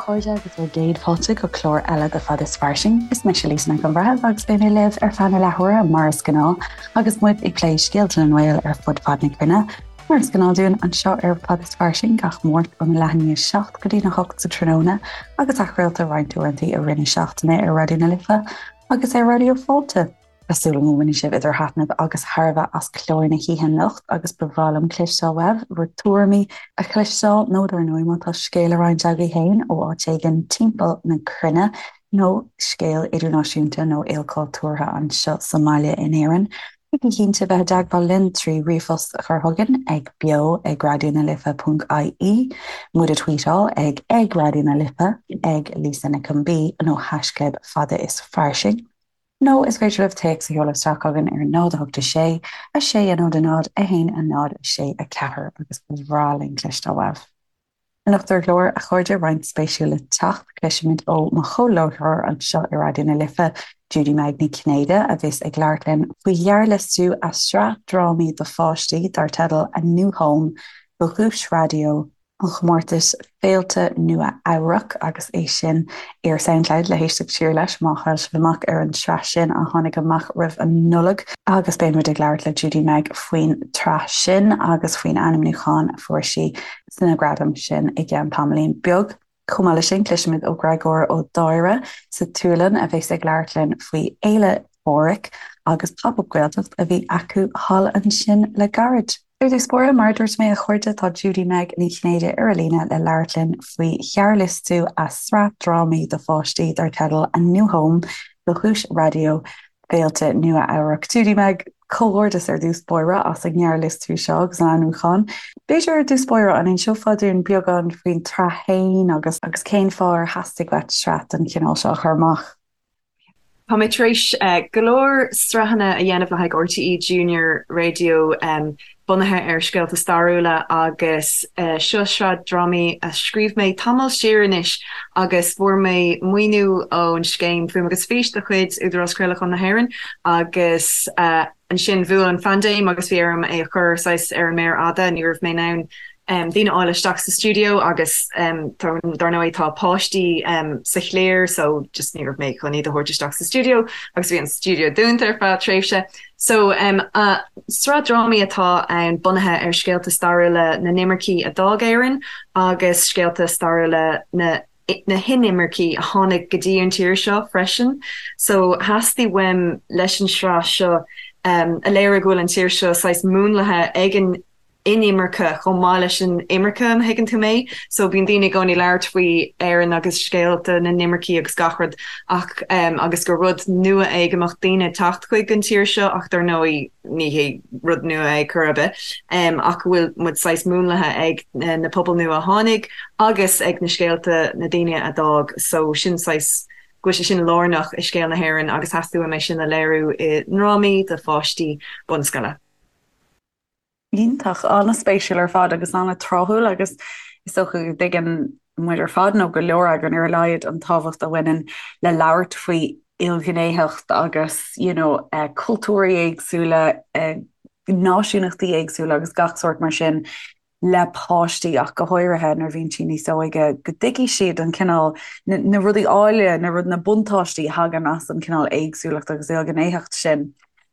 chairde agus bhur gcéad fáilte go clár eile de Fad is Fairsing. Is mise Lisa Nic an Bhreithimh agus beidh mé libh ar feadh na leathuaire mar is gnáth agus muid ag plé scéalta na nGael ar fud fad na cruinne. Mar is gnáth dúinn anseo ar Fad is Fairsing gach Máirt óna leath i ndiaidh 7 go dtí na 8 sa tráthnóna agus athchraolta roinnt uaireanta i rith na seachtaine ar Raidió na Life agus ar Raidió Fáilte. Tá súil agam go mbainfidh sibh idir thaitneamh agus thairbhe as clár na hoíche anocht agus ba bhreá liom cloisteáil uaibh bhur dtuairimí a chloisteáil nó dar ndóigh má tá scéal le roinnt agaibh féin ó áit éigin timpeall na cruinne nó scéal idirnáisiúnta nó ilchultúrtha anseo sa mbaile in Éirinn. Bígí cinnte bheith i dteagmháil linn trí ríomhphost a chur chugainn ag beo ag raidió na life ponc ie, muid a tweetáil ag ag Raidió na Life, ag Lisa Nic an B nó haischlib fada is fairsing. Nó is féidir libh téacs a sheoladh isteach chugainn ar 0 8 6 6 0 0 1 0 6 4 agus ba bhreá linn cloisteáil uaibh. Anocht ar an gclár, a chairde, roinnt spéisiúil le teacht. Cloisfimid ó mo chomhláithreoir anseo i Raidió na Life, Judy Meg Ní Chinnéide, a bheas ag labhairt linn faoi ghearrliostú a sraith drámaí do pháistí dar teideal A New Home do Dhuais Raidió an chomórtais Féilte Nua-Eabhrac agus é sin ar Soundcloud le héisteacht siar leis má chaill sibh amach ar an tsraith sin a tháinig amach roimh an Nollaig. Agus beidh muid ag labhairt le Judy Meg faoin tsraith sin agus faoin ainmniúchán a fuair sí sna gradaim sin i gceann tamaillín beag. Chomh maith leis sin, cloisfimid ó Ghreagóir Ó Dáire sa tSualainn a bheas ag labhairt linn faoi Fhéile Phádraig agus Pop Up Gaeltacht a bhí acu thall ansin le gairid. Ar dtús báire, mar a dúirt mé, a chairde, tá Judy Meg Ní Chinnéide ar an líne le labhairt linn faoi ghearrliostú a sraith drámaí do pháistí dar teideal A New Home do Dhuais Raidió Féilte Nua-Eabhrac. Judy Meg, comhghairdeas ar dtús báire as an ngearrliostú seo agus an ainmniúchán. B'fhéidir ar dtús báire, an inseofá dúinn beagán faoin tsraith féin agus agus cén fáth ar theastaigh uait sraith den chineál seo a chur amach? Tá mé tar éis go leor sraitheanna a dhéanamh le haghaidh RTÉ Junior Radio bunaithe ar scéalta stairiúla agus seo sraith drámaí a scríobh mé tamall siar anois agus fuair mé maoiniú ón scéim Fuaim agus Fís de chuid Údarás Craolacháin na hÉireann agus ansin bhuail an phaindéim agus bhí orm é a chur saghas ar an méar fhada, ní raibh mé in ann daoine a fháil isteach sa stiúideo agus dar ndóigh tá páistí sa chliar so just ní raibh mé chun iad a thabhairt isteach sa stiúideo agus bhí an stiúideo dúnta ar feadh tréimhse. So sraith drámaí atá ann bunaithe ar scéalta stairiúla na n-imircí a d'fhág Éirinn agus scéalta stairiúla na na hinimircí a tháinig go dtí an tír seo freisin. So theastaigh uaim leis an sraith seo a léiriú go bhfuil an tír seo saghas múnlaithe ag an inimirce chomh maith leis an imirce, an dtuigeann tú mé? So bíonn daoine i gcónaí ag labhairt faoi Éirinn agus scéalta na n-imircí agus gach rud ach agus gur rud nua é go mbeadh daoine ag teacht chuig an tír seo ach dar ndóigh ní hé rud nua é chor ar bith ach go bhfuil muid saghas múnlaithe ag na pobail nua a tháinig agus ag na scéalta na daoine a d'fhág so sin saghas go bhfuil sé sin lárnach i scéal na hÉireann agus theastaigh uaim é sin a léiriú i ndrámaí do pháistí bunscoile. Iontach, an-spéisiúil ar fad agus an-tráthúil agus is dócha go dtuigeann muid ar fad, nó go leor againn ar a laghad, an tábhacht a bhaineann le labhairt faoi ilghnéitheacht agus you know cultúirí éagsúla, náisiúnachtaí éagsúla agus gach sórt mar sin le páistí ach go háirithe nuair a bhíonn siad níos óige, go dtuigfidh siad an cineál, na rudaí áille, na rud, na buntáistí a thagann as an cineál éagsúlacht agus ilghnéitheacht sin.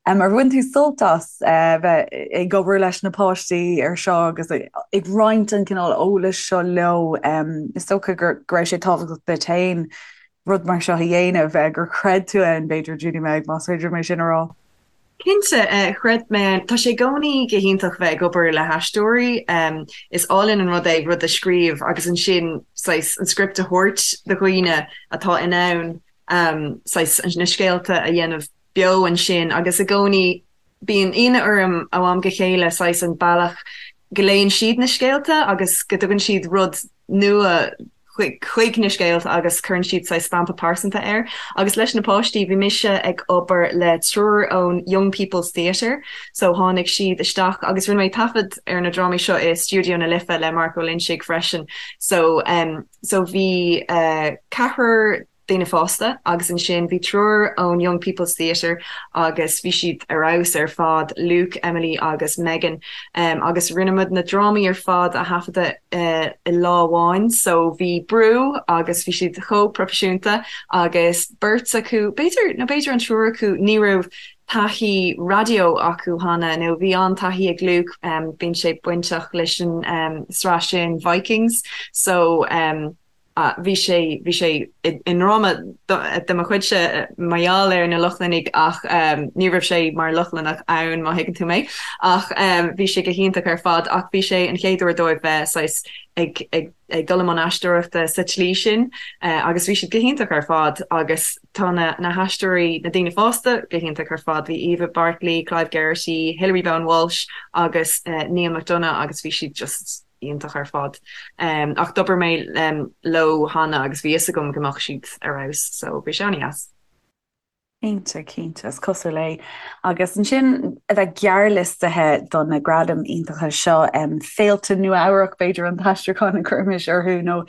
Ar bhain tú sult as bheith ag obair leis na páistí ar seo agus ag roinnt an cineál eolais seo leo? Is dócha go raibh sé tábhachtach duit féin rud mar seo a dhéanamh, gur chreid tú ann, b'fhéidir, Judy Meg, más féidir liom é sin a rá. Cinnte, chreid mé ann. Tá sé i gcónaí go hiontach bheith ag obair le haisteoirí. Is álainn an rud é rud a scríobh agus ansin saghas an script a thabhairt do dhaoine atá in ann saghas na scéalta a dhéanamh beo ansin agus i gcónaí bíonn ionadh orm ó am go chéile saghas an bealach go léann siad na scéalta agus go dtugann siad rud nua chuig na scéalta agus cuireann siad saghas stampa pearsanta air. Agus leis na páistí bhí mise ag obair le triúr ón Young People's Theatre so tháinig siad isteach agus rinne mé taifead ar na drámaí seo i Stiúideo na Life le Mark Ó Loinsigh freisin so so bhí ceathrar. daoine fásta agus ansin bhí triúr ón Young People's Theatre agus bhí siad ar fheabhas ar fad, Luke, Emily agus Megan agus rinne muid na drámaí ar fad a thaifeadadh i lá amháin so bhí brú agus bhí siad chomh proifisiúnta agus beirt acu, b'fhéidir, nó b'fhéidir an triúr acu, ní raibh taithí raidió acu cheana nó bhí an-taithí ag Luke, bíonn sé bainteach leis an sraith sin Vikings so bhí sé, bhí sé i ndráma de mo chuidse mar gheall ar na Lochlannaigh ach ní raibh sé mar Lochlannach ann má thuigeann tú mé ach bhí sé go hiontach ar fad ach bhí sé an chéad uair dóibh bheith saghas ag, ag, ag dul i mbun aisteoireachta sa tslí sin agus bhí siad go hiontach ar fad agus tá na, na haisteoirí, na daoine fásta go hiontach ar fad, bhí Eva Bartley, Clive Geraghty, Hilary Bowen Walsh agus Neil McDonagh agus bhí siad just iontach ar fad. Ach d'obair mé leo cheana agus bhí fhios agam go mbeadh siad ar fheabhas so bhí sé an-dheas. Cinnte, cinnte, is cosúil é. Agus ansin a bheith gearrliostaithe do na gradaim iontacha seo, Féilte Nua-Eabhrac b'fhéidir an t-aistriúchán a chuirfimis orthu nó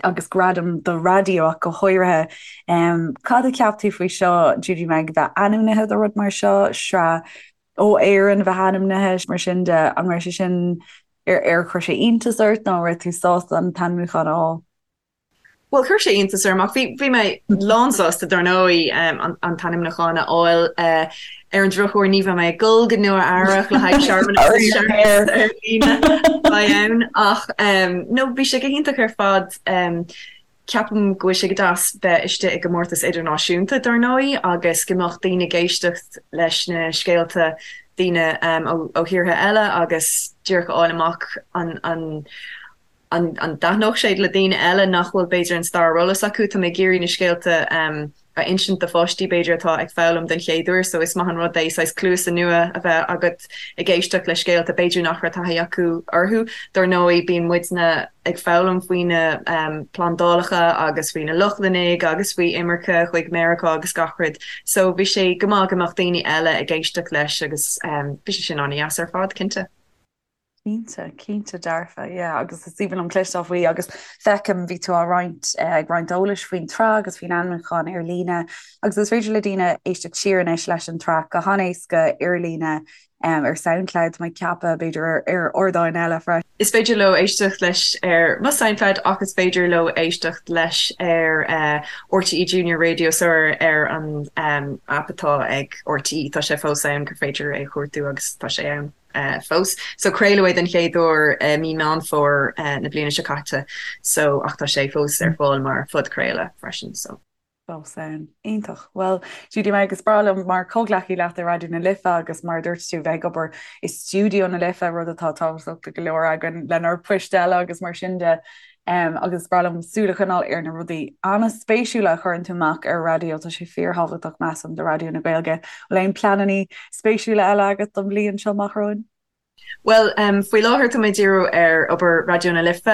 agus gradaim do raidió ach go háirithe. Cad a cheap tú faoi seo, Judy Meg, bheith ainmnithe do rud mar seo, sraith ó Éirinn a bheith ainmnithe, mar sin de, an raibh sé sin, ar chuir sé iontas ort nó an raibh tú sásta an t-ainmniúchán a fháil? Bhuel, chuir sé iontas orm ach bhí, bhí mé lánsásta dar ndóigh an, an t-ainmniúchán a fháil. Ar an drochuair ní bheidh mé ag dul go Nua Eabhrac le haghaidh searmanas searmanas ar líne a bheidh ann ach no bhí sé go hiontach ar fad. Ceapaim go bhfuil sé go deas bheith istigh i gcomórtas idirnáisiúnta, dar ndóigh, agus go mbeadh daoine ag éisteacht leis na scéalta daoine ó thíortha eile agus díreach a fháil amach an an an dtaitneodh sé le daoine eile nach bhfuil b'fhéidir an stair ar eolas acu. Tá mé ag iarraidh na scéalta a insint do pháistí b'fhéidir atá ag foghlaim den chéad uair so is maith an rud é saghas cluasa nua a bheith agat ag éisteacht le scéalta b'fhéidir nach raibh taithí acu orthu. Dar ndóigh bíonn muidne ag foghlaim faoi na plandálacha agus faoi na Lochlannaigh agus faoi imirce chuig Meiriceá agus gach rud so bhí sé go maith go mbeadh daoine eile ag éisteacht leis agus bhí sé sin an-dheas ar fad, cinnte. Cinnte, cinnte dearfa, yeah, agus is aoibhinn liom cloisteáil faoi agus feicim bhí tú á roinnt, ag roinnt eolais faoin tsraith agus faoin ainmniúchán ar líne agus is féidir le daoine éisteacht siar anois leis an tsraith go han-éasca ar líne ar Soundcloud, tá mé ag ceapadh, b'fhéidir ar ardáin eile freisin. Is féidir leo éisteacht leis ar mo Soundcloud ach is féidir leo éisteacht leis ar RTÉ Junior Radio so ar an aip atá ag RTÉ, tá sé fós ann gur féidir é a chuartú agus tá sé ann. fós. So craoladh é den chéad uair i mí Meán Fómhair na bliana seo caite so ach tá sé fós ar fáil mar phodchraoladh freisin so. Fós ann. Iontach. Bhuel, Judy Meg, is breá liom mar chomhghleacaí leat i Raidió na Life agus mar a dúirt tú bheith ag obair i stiúideo na Life, rud atá tábhachtach do go leor againn lenár bpoist eile agus mar sin de. Agus is breá liom súil a choinneáil ar na rudaí an-spéisiúla a chuireann tú amach ar raidió, tá sé fíorthábhachtach, measaim, do Raidió na Gaeilge. Bhfuil aon pleananna spéisiúla eile agat don bhliain seo amach romhainn? Bhuel, faoi láthair tá mé ag díriú ar obair Raidió na Life,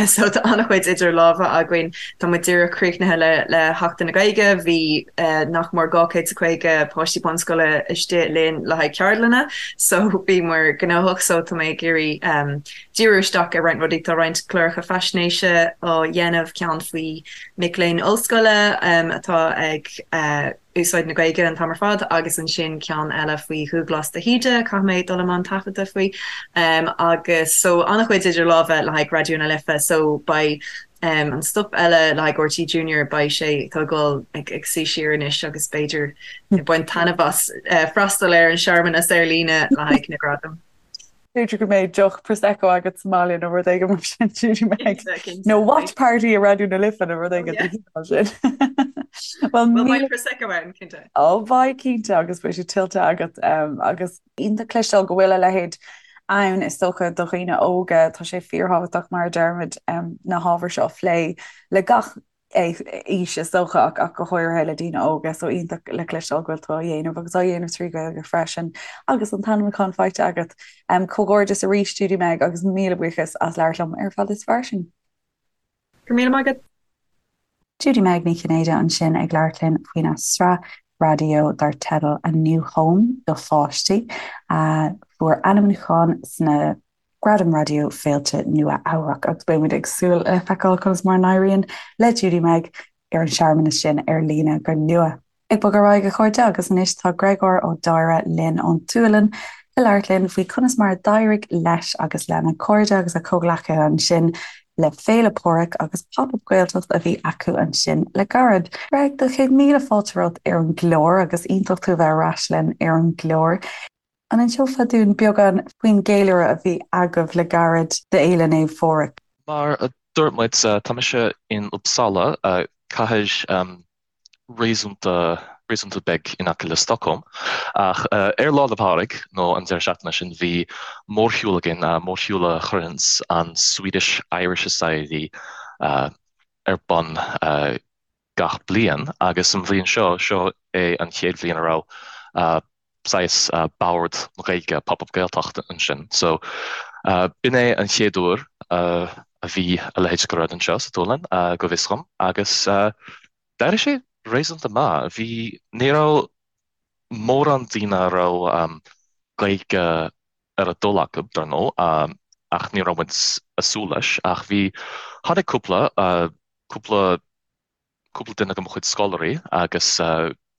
so tá an-chuid idir lámha againn. Tá muid díreach críochnaithe le le Seachtain na Gaeilge, bhí nach mór 250 páistí bunscoile istigh linn le haghaidh ceardlanna, so bhíomar gnóthach, so tá mé ag iarraidh díriú isteach ar roinnt rudaí. Tá roinnt cláracha faisnéise á dhéanamh, ceann faoi mic léinn ollscoile atá ag úsáid na Gaeilge an t-am ar fad agus ansin ceann eile faoi Dhúghlás de hÍde, caithfidh mé dul i mbun taifeadta faoi. Agus so an-chuid idir lámha le haghaidh Raidió na Life so beidh an stuif eile le haghaidh RTÉ Junior, beidh sé, tá ag dul ag suí siar anois agus b'fhéidir ag baint taitneamh as freastal ar an searmanas ar líne le haghaidh na gradam. B'fhéidir go mbeidh deoch Prosecco agat sa mbaile nó rud éigin mar sin, Judy Meg. Nó watch party i Raidió na Life nó rud éigin den chineál sin. Well, beidh Prosecco ann, cinnte. Ó, beidh, cinnte, agus beidh sé tuillte agat. Agus iontach cloisteáil go bhfuil a leithéid ann, is dócha, do dhaoine óga. Tá sé fíorthábhachtach, mar a deirimid, na hábhair seo a phlé le gach aois is dócha ach go háirithe le daoine óga so iontach le cloisteáil go bhfuil tú á dhéanamh agus á dhéanamh trí Ghaeilge freisin agus an t-ainmniúchán faighte agat. Comhghairdeas arís Judy Meg agus míle buíochas as labhairt liom ar Fad is Fairsing. Go raibh míle maith agat. Judy Meg Ní Chinnéide ansin ag labhairt linn faoina sraith raidió dar teideal A New Home do pháistí a fuair ainmniúchán sna Gradaim Raidió Féilte Nua Eabhrac agus beidh muid ag súil le feiceáil conas mar a n-éiríonn le Judy Meg. ar an searmanas sin ar líne go luath. Ag bogadh ar aghaidh, a chairde, agus anois tá Gréagóir Ó Daighre linn ón tSualainn le labhairt linn faoi conas mar a d'éirigh leis agus lena chairde agus a chomhghleacaithe ansin le Féile Pádraig agus Pop Up Gaeltacht a bhí acu ansin le gairid. Greg, do chéad míle fáilte romhat ar an gclár agus iontach tú a bheith ar ais linn ar an gclár. An inseofá dúinn beagán faoin gceiliúradh a bhí agaibh le gairid d'Fhéile Naomh Phádraig? Mar a dúirt muid, tá mise in Uppsala, cathair réasúnta, réasúnta beag in aice le Stockholm. Ach ar Lá 'le Pádraig, nó an deireadh seachtaine sin, bhí mórshiúl againn, mórshiúl a chuireanns an Swedish Irish Society ar bun gach bliain, agus an bhliain seo, seo é an chéad bhliain a raibh saghas bord na Gaeilge, Pop Up Gaeltacht ansin. So, b'in é an chéad uair a bhí a leithéid de rud anseo sa tSualainn, go bhfios dhom, agus d'éirigh sé réasúnta maith. Bhí, ní raibh mórán daoine a raibh Gaeilge ar a dtoil acu, dar ndóigh, ach ní raibh muid ag súil leis, ach bhí, tháinig cúpla, cúpla cúpla duine de mo chuid scoláirí agus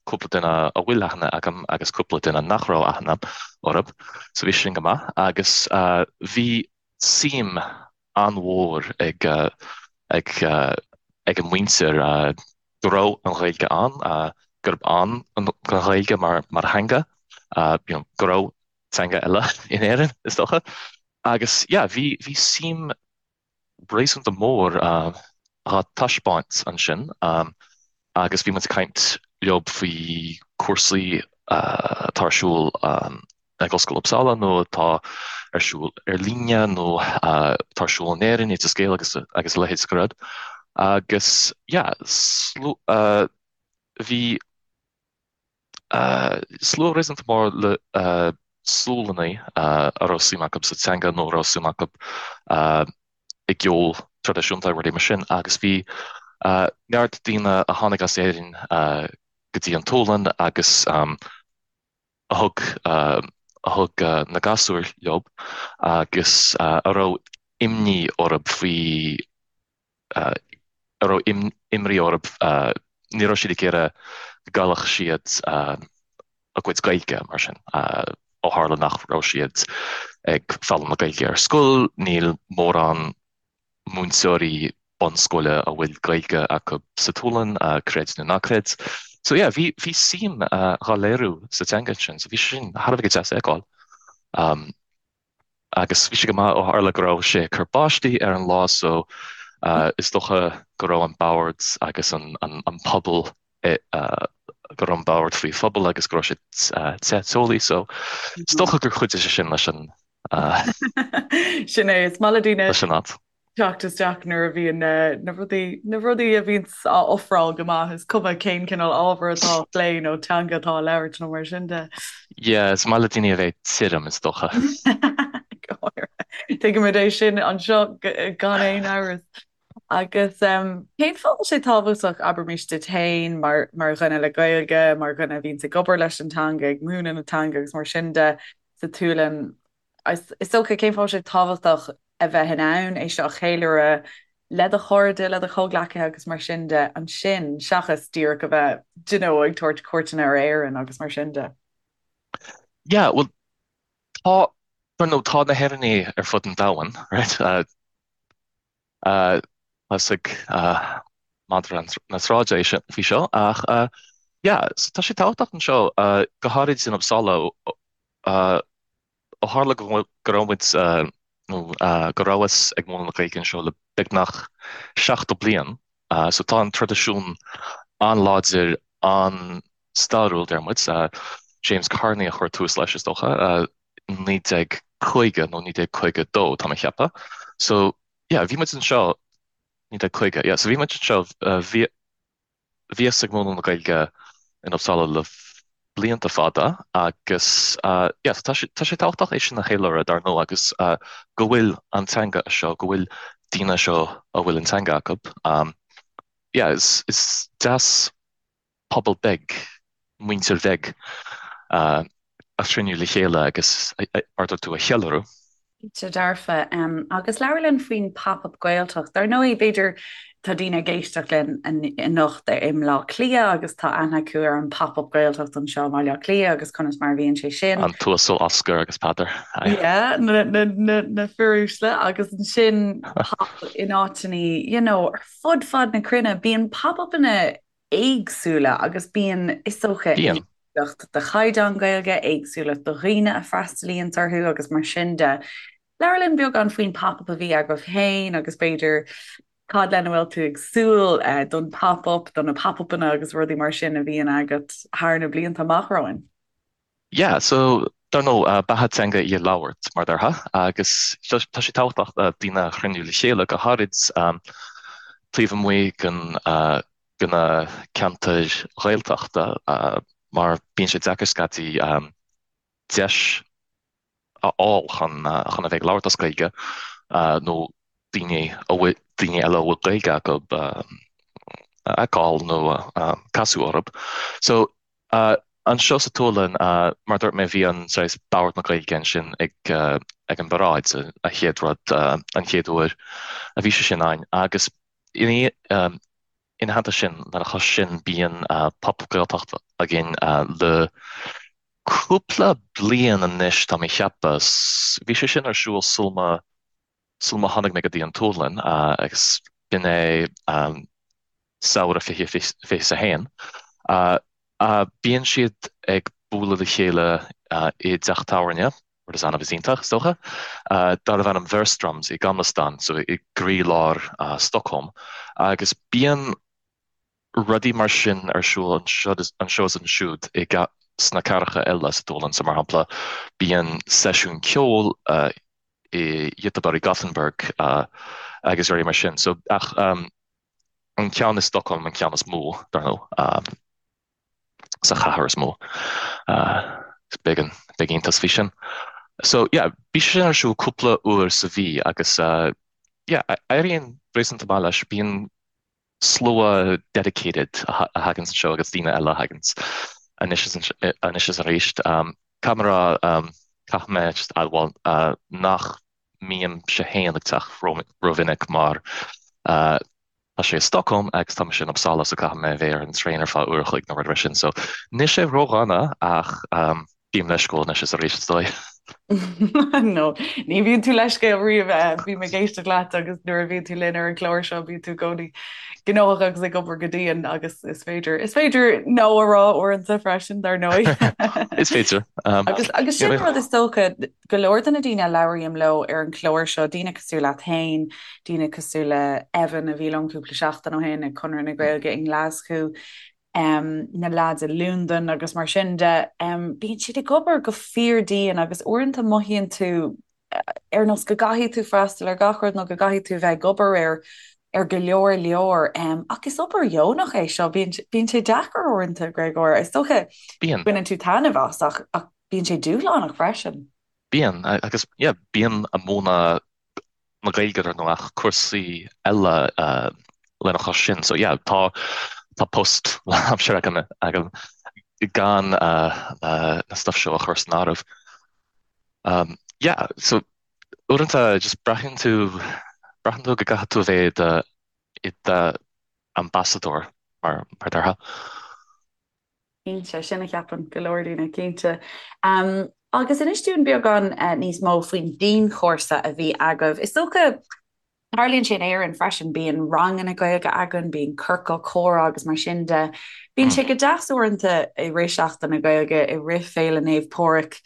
cúpla duine a bhfuil aithne agam agus cúpla duine nach raibh aithne orthu, so bhí sin go maith agus bhí suim an-mhór ag ag ag an muintir go raibh an Ghaeilge ann, gurb ann don Ghaeilge mar mar theanga, you know, go raibh teanga eile in Éirinn is dócha agus yeah bhí bhí suim réasúnta mór á taispeáint ansin agus bhí muid ag caint leo faoi cúrsaí atá ar siúl ag Ollscoil Uppsala nó atá ar siúl ar líne nó atá ar siúl in Éirinn, Oideas Gael agus agus a leithéid de rud. Agus yeah, bhí Slua réasúnta mór le Sualannaigh a raibh suim acu sa teanga nó a raibh suim acu i gceol traidisiúnta, rudaí mar sin, agus bhí neart daoine a tháinig as Éirinn go dtí an tSualainn agus a thug a thug na gasúir leo agus a raibh imní orthu faoi a raibh imní orthu, ní raibh siad ag iarraidh go gcaillfeadh siad a gcuid Gaeilge mar sin, ó tharla nach raibh siad ag foghlaim na Gaeilge ar scoil, níl mórán múinteoirí bunscoile a bhfuil Gaeilge acu sa tSualainn, creid nó ná creid. So yeah, bhí bhí suim dhá léiriú sa teanga ansin, so bhí sé sin thar a bheith deas a fheiceáil. Agus bhí sé go maith ó tharla go raibh sé ag cur báistí ar an lá so is dócha go raibh an bord agus an puball go raibh an bord faoi phuball agus go raibh sé te teolaí so is dócha gur chuidigh sé sin leis an Sin é, is maith le daoine leis an áit. teacht isteach nuair a bhíonn na rudaí, na rudaí a bhíonns á ofráil go maith, is cuma cén cineál ábhar atá á phlé nó teanga atá á labhairt nó mar sin de. Yeah, is maith le daoine a bheith tirim, is dócha. Go háirithe. Tuigimid é sin anseo gan aon amhras. Agus cén fáth a bhfuil sé tábhachtach, abraimis duit féin, mar mar dhuine le Gaeilge, mar dhuine a bhíonns ag obair leis an teanga, ag múineadh na teanga agus mar sin de sa tSualainn, Is dócha, cén fáth a bhfuil sé tábhachtach a bheith in ann é seo a cheiliúradh le do chairde, le do chomhghleacaithe agus mar sin de ansin, seachas díreach a bheith, d'you know, ag tabhairt cuairteanna ar Éirinn agus mar sin de? Yeah, bhuel, tá, dar ndóigh, tá na hÉireannaigh ar fud an domhain, right? Tá fhios ag madra na sráide é sin faoi seo, ach yeah, so tá sé tábhachtach anseo, go háirid in Uppsala, Ó tharla go raibh muid, nó go rabhas ag múineadh na Gaeilge anseo le beagnach 70 bliain, so tá an traidisiún an-láidir, an-stairiúil, deir muid. James Carney a chuir tús leis, is dócha, 1950 nó 1952, tá mé ag ceapadh. So, yeah, bhí muid anseo, 1950, yeah, so bhí muid anseo, bhí, Bhíos ag múineadh na Gaeilge in Uppsala le blianta fada agus yeah tá sé tá sé tábhachtach é sin a cheiliúradh dar ndóigh agus go bhfuil an teanga anseo, go bhfuil daoine anseo a bhfuil an teanga acu. Yeah is is deas pobal beag, muintir bheag a chruinniú le chéile agus mar a dúirt tú a cheiliúradh. Cinnte dearfa. Agus labhair linn faoin Pop Up Gaeltacht. Dar ndóigh, b'fhéidir tá daoine ag éisteacht linn anocht i mBleá Cliath agus tá aithne acu ar an Pop Up Gaeltacht anseo i mBaile Átha Cliath agus conas mar a bhíonn sé sin. An tUasal Oscar agus Peadar. Yeah, na, na, na, na fir uaisle agus ansin pop in áiteanna, you know, ar fud fad na cruinne, bíonn pop-upanna éagsúla agus bíonn, is dócha, Bíonn. éagsúlacht de chaighdeán Gaeilge, éagsúlacht de dhaoine a freastalaíonns orthu agus mar sin de. Labhair linn beagán faoin pop-up a bhí agaibh féin agus b'fhéidir cad lena bhfuil tú ag súil don pop-up, do na pop-upanna agus rudaí mar sin a bhíonn agat thar na blianta amach romhainn. Yeah, so, dar ndóigh, beatha teanga í a labhairt, mar déarfá, agus tá sé tábhachtach daoine a chruinniú le chéile, go háirid taobh amuigh den, de na ceantair Ghaeltachta, mar bíonn sé deacair scaití deis a fháil chun chun a bheith ag labhairt as Gaeilge nó daoine a bhfuil daoine eile a bhfuil Gaeilge acu a fheiceáil nó casadh orthu. So anseo sa tSualainn, mar a dúirt mé, bhí an saghas Bord na Gaeilge ansin ag ag an bparáid, a chéad rud, an chéad uair a bhí sé sin ann agus ina ina theannta sin, lena chois sin, bíonn Pop Up Gaeltacht againn le cúpla bliain anois, tá mé ag ceapadh. Bhí sé sin ar siúl sul má sul má tháinig mé go dtí an tSualainn agus b'in é samhradh 2021. Bíonn siad ag bualadh le chéile i dteach tábhairne, rud is annamh is iontach, is dócha, darbh ainm Wehrströms i Gamla Stan, so i gcroílár Stockholm, agus bíonn rudaí mar sin ar siúl anseo is ansiúd i sna cathracha eile sa tSualainn, so mar shampla bíonn seisiún ceoil i Göteborg, i Gothenburg agus rudaí mar sin, so ach an ceann i Stockholm an ceann is mó, dar ndóigh. sa chathair is mó. Is beag an beag iontas faoi sin. So yeah, bhí sé sin ar siúl cúpla uair sa mhí agus yeah, éiríonn réasúnta maith leis. Bíonn slua dedicated a thaganns anseo agus daoine eile a thaganns anois is anois is arís. Caithfidh mé a rá, caithfidh mé just admháil nach mbímse féin ag teacht rómhinic mar Tá sé i Stockholm agus tá mise in Uppsala so caithfidh mé a bheith ar an traein ar feadh uair a chloig nó rud mar sin so níl sé ródhona ach bím leisciúil anois is arís is dóigh. No, ní bhíonn tú leisciúil riamh. Bím ag éisteacht leat agus nuair a bhíonn tú linn ar an gclár seo bíonn tú i gcónaí gnóthach agus ag obair go dian agus is féidir, is féidir no a rá uaireanta freisin dar ndóigh. Is féidir. Agus agus sin rud is dócha go leor de na daoine a labhraím leo ar an chlár seo, daoine cosúil leat féin, daoine cosúil le Evan a bhí liom cúpla seachtain ó shin ag Conradh na Gaeilge i nGlaschú, na leaids i Londain agus mar sin de, bíonn siad ag obair go fíordian agus uaireanta mothaíonn tú ar nós go gcaithfidh tú freastal ar gach rud nó go gcaithfidh tú bheith ag obair ar ar go leor leor. Ach is obair dheonach é seo, bíonn sé deacair uaireanta, Gréagóir. Is dócha Bíonn. baineann tú taitneamh as ach ach Bíonn sé dúshlánach freisin. Bíonn, agus yeah, bím ag múineadh na Gaeilge ar ndóigh ach cúrsaí eile lena chois sin. So yeah, tá tá post lánaimseartha agam agam gan na stuff seo a chur san áireamh. Um, yeah, so uaireanta just braitheann tú braitheann tú go gcaithfidh tú a bheith i do ambasadóir mar mar déarfá. Cinnte, sin a cheapann go leor daoine, cinnte. Agus inis dúinn beagán níos mó faoin dianchúrsa a bhí agaibh. Is dócha, tarlaíonn sé in Éirinn freisin, bíonn ranganna Gaeilge againn, bíonn ciorcal comhrá agus mar sin de. Bíonn sé go deas uaireanta i rith Seachtain na Gaeilge, i rith Féile Naomh Pádraig,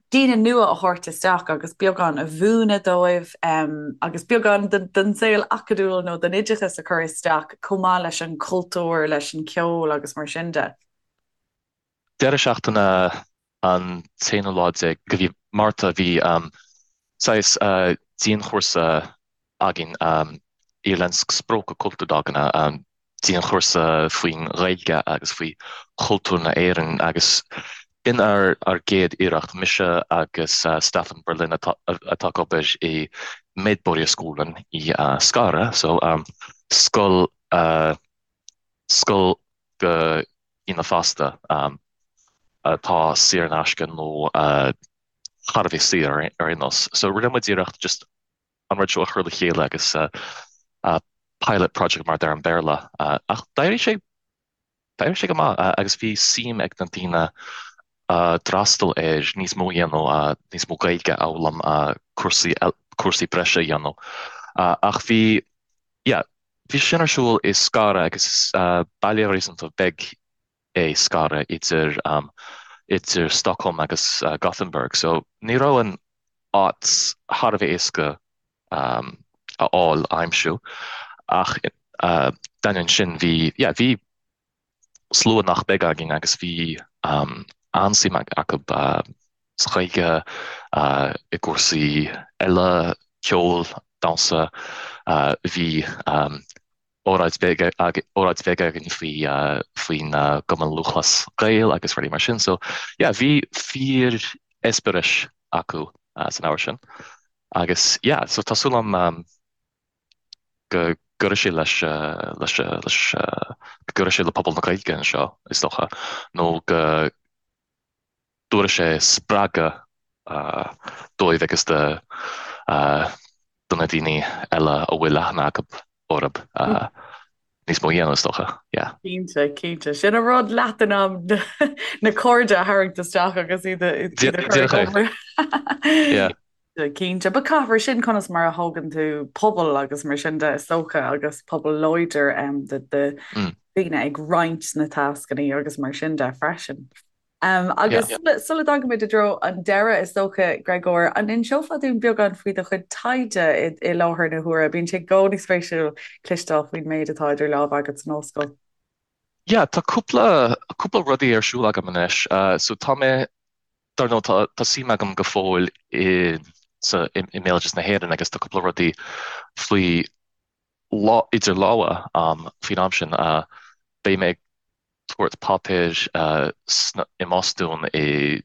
daoine nua a thabhairt isteach agus beagán a mhúineadh dóibh agus beagán den saol acadúil nó den oideachas a chur isteach chomh maith leis an chultúr, leis an cheol agus mar sin de. Deireadh seachtaine an t-aonú lá déag de mhí Márta bhí saghas dianchúrsa againn, Irländsk språk och kulturdagarna, dianchúrsa faoin Ghaeilge agus faoi chultúr na Éireann agus b'in ár ár gcéad iarracht, mise agus Staffan Berlin atá atá ag obair i Medborgarskolan i Skara, so scoil scoil do dhaoine fásta atá saor in aisce nó. thar a bheith saor ar aon nós. So rinne muid iarracht just an rud seo a chur le chéile agus pilot project mar a deir an Béarla ach d'éirigh sé d'éirigh sé go maith agus bhí suim ag na daoine a d'fhreastail air níos mó a dhéanamh, níos mó Gaeilge a fhoghlaim, cúrsaí cúrsaí breise a dhéanamh. Ach bhí yeah bhí sin ar siúl i Skara agus is baile réasúnta beag é Skara idir idir Stockholm agus Gothenburg so ní raibh an áit thar a bheith éasca a fháil, a aimsiú ach d'ainneoin sin bhí yeah bhí slua nach beag againn agus bhí an-suim acu sa Ghaeilge, i gcúrsaí eile, ceol, damhsa, bhí óráid bheag óráid bheag againn faoi faoin gCumann Lúthchleas Gael agus rudaí mar sin. So yeah bhí fíor eispéireas acu san ábhar sin. Agus yeah so tá súil agam go gcuirfidh sé leis leis leis go gcuirfidh sé le pobal na Gaeilge anseo is dócha nó go dtabharfaidh sé spreagadh dóibh agus do do na daoine eile a bhfuil aithne acu orthu níos mó a dhéanamh is dócha. Yeah. Cinnte, cinnte. Sin an rud leat in am na cairde a tharraingt isteach agus iad a iad a chur ag obair. Yeah. Cinnte. But caithfear sin conas mar a thógann tú pobal agus mar sin de is dócha agus pobal láidir de de daoine ag roinnt na tascanna agus mar sin de freisin. Agus sula dtagaimid i dtreo an deireadh, is dócha, Gréagóir, an inseofá dúinn beagán faoi do chuid taighde i láthair na huaire? Bíonn sé i gcónaí spéisiúil cloisteáil faoin méid atá idir lámha agat san ollscoil. Yeah, tá cúpla, cúpla rudaí ar siúl agam anois. So tá mé, dar ndóigh, tá, tá suim agam go fóill i, sa, i, i mbéaloideas na hÉireann agus tá cúpla rudaí faoi lá, idir lámha faoin am sin. Beidh mé ag tabhairt páipéir i mBostún i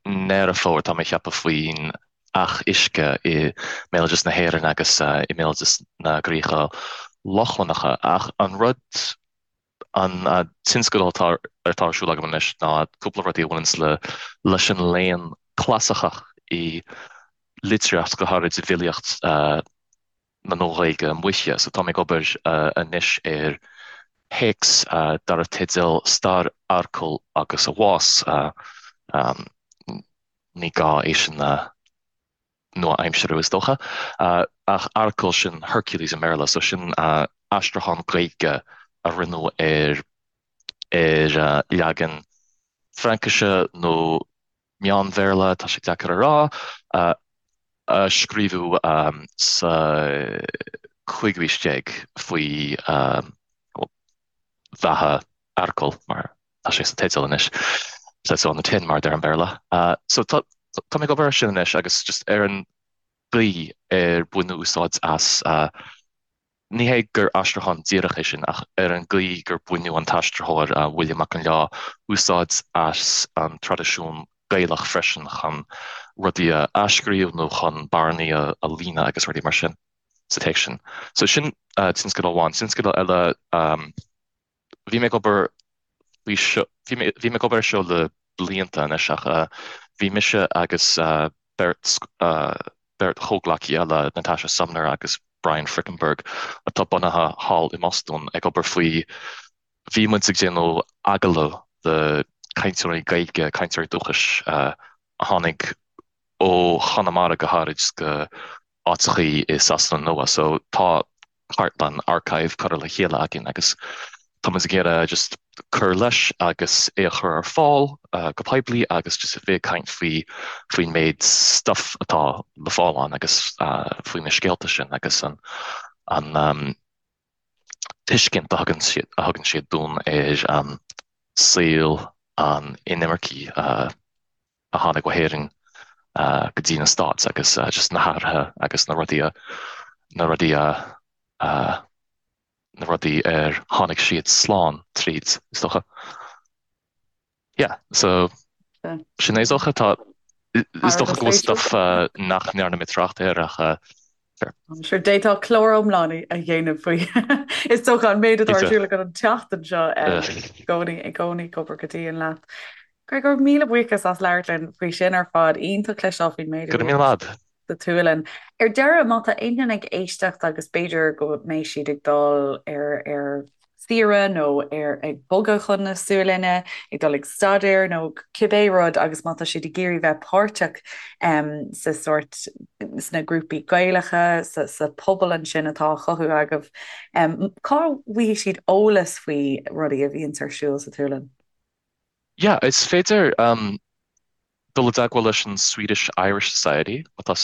nDeireadh Fómhair, tá mé ag ceapadh, faoin each uisce i mbéaloideas na hÉireann agus i mbéaloideas na gcríocha Lochlannacha. Ach an rud, an tionscadal atá atá ar siúl agam anois ná cúpla rudaí a bhaineanns le leis an léann clasaiceach i litríocht, go háirid i bhfilíocht na Nua-Ghaeilge Moiche. So tá mé ag obair anois ar théacs darbh teideal Stair Earcail agus a Bhás. Ní gá é sin a nua-aimsiú is dócha. Ach Earcal sin Hercules i mBéarla, so sin aistriúchán Gaeilge a rinneadh ar ar leagan Fraincise nó Meán-Bhéarla, tá sé deacair a rá, a scríobhadh sa chúigiú haois déag faoi bheatha Earcail, mar tá sé sa teideal anois, says so on the tin, mar a deir an Béarla. So tá mé ag obair air sin anois agus just ar an gcaoi ar baineadh úsáid as Ní hé gur aistriúchán díreach é sin, ach ar an gcaoi gur baineadh an t-aistritheoir, William Mac Con Leá, úsáid as an traidisiún Gaelach freisin chun rudaí a athscríobh nó chun bearnaí a líonadh agus rudaí mar sin sa téacs sin. So sin tionscadal amháin. Tionscadal eile, bhí mé ag obair faoi seo, bhí mé, bhí mé ag obair air seo le blianta anois ach bhí mise agus beirt, beirt chomhghleacaí eile, Natasha Sumner agus Brian Frickenberg, atá bunaithe thall i mBostún, ag obair faoi, bhí muid ag déanamh agallamh le cainteoirí Gaeilge, cainteoirí dúchais a tháinig ó Chonamara go háirid go áiteachaí i Sasana Nua. So tá cartlann, archive, curtha le chéile againn agus tá muid ag iarraidh just cur leis agus é a chur ar fáil go poiblí agus just a bheith ag caint faoi faoin méid stuff atá le fáil ann agus faoi na scéalta sin agus an an tuiscint a thugann siad a thugann siad dúinn ar saol an inimircigh a tháinig ó hÉirinn go dtí na Stáit agus just na hathruithe agus na rudaí a, na rudaí a, na rudaí ar tháinig siad slán tríd, is dócha. Yeah, so sin é is dócha. Tá, is dócha go bhfuil stuff nach ndearna mé trácht air ach sure. Sure, d'fhéadfá clár iomlán a dhéanamh faoi. Is dócha an méid atá ar siúl agat an tseachtain seo i gcónaí, i gcónaí ag obair go dian leat. Gregor, míle buíochas as labhairt linn faoi sin ar fad. Iontach cloisteáil faoin méid a Go raibh míle maith agat. sa tSualainn. Ar deireadh, má tá aon duine ag éisteacht agus b'fhéidir go mbeidh siad ag dul ar ar saoire nó ar ag bogadh chun na Sualainne, ag dul ag staidéar nó cibé rud agus má tá siad ag iarraidh bheith páirteach sa sórt sna grúpaí Gaelacha, sa sa pobal ansin atá á chothú agaibh, cá bhfaighidh siad eolas faoi rudaí a bhíonns ar siúl sa tSualainn? Yeah, is féidir dul i dteagmháil leis an Swedish Irish Society, má tá,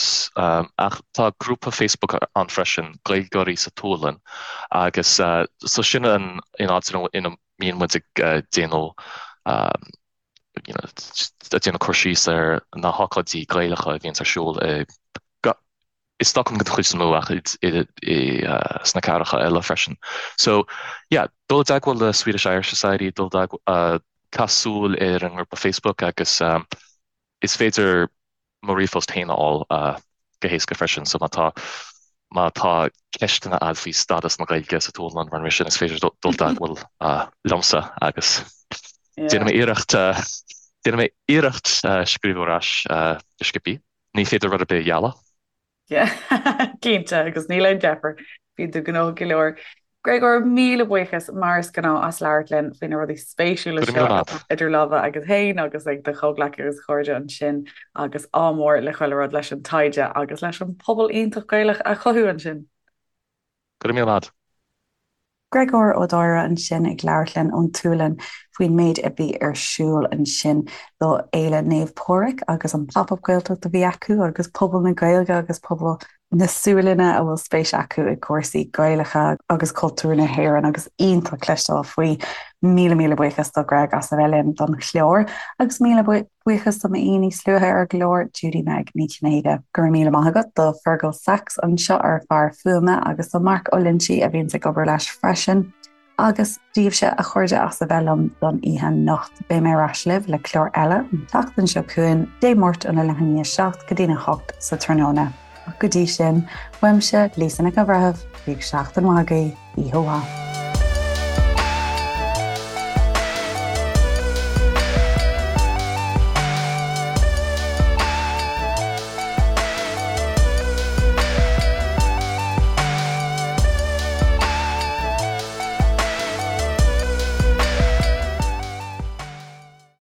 ach tá grúpa Facebook ann freisin, Gaeilgeoirí sa tSualainn, agus so sin an áit ina mbíonn muid ag déanamh you know, ag déanamh cur síos ar na hócáidí Gaelacha a bhíonns ar siúl i i Stockholm den chuid is mó ach sna cathracha eile freisin. So, yeah, dul i dteagmháil le Swedish Irish Society, dul i dteagmháil, caith súil ar an ngrúpa Facebook agus is féidir mo ríomhphost féin a fháil go héasca freisin. So má tá má tá ceisteanna agat faoi stádas na Gaeilge sa tSualainn mar sin is féidir dul i dteagmháil liomsa agus déanfaidh mé iarracht déanfaidh mé iarracht scríobh ar ais go sciobtha. Ní féidir rud ar bith a ghealladh. Cinnte, agus níl aon deifir, bíonn tú gnóthach go leor. Gregor, míle buíochas mar is gnáth as labhairt linn faoi na rudaí spéisiúla Go raibh seo míle atá maith. idir lámha agat féin agus ag do chomhghleacaithe agus chairde ansin agus ádh mór le chuile rud leis an taighde agus leis an pobal iontach Gaelach a chothú ansin. Go raibh míle maith. Gregor Ó Dáire ansin ag labhairt linn ón tSualainn faoin méid a bhí ar siúl ansin do Fhéile Naomh Pádraig agus an Pop Up Gaeltacht a bhí acu agus pobal na Gaeilge agus pobal na Sualainne a bhfuil spéis acu i gcúrsaí Gaelacha agus cultúr na hÉireann agus iontach cloisteáil faoi. Míle míle buíochas do Greg as a bheith linn don chlár agus míle Buíochas do m'aoi níos luaithe ar an gclár, Judy Meg Ní Chinnéide. Go raibh míle maith agat do Fergal Sachs anseo ár bhfear fuaime agus do Mark Ó Loinsigh a bhíonns ag obair leis freisin. Agus daoibhse, a chairde, as a bheith liom don oíche anocht. Beidh mé ar ais libh le clár eile an tseachtain seo chugainn, Dé Máirt óna leath i ndiaidh a 7 go dtína 8 sa tráthnóna. Ach go dtí sin, uaimse, Lisa Nic an Bhreithimh, bíodh seachtain mhaith agaibh, oíche mhaith.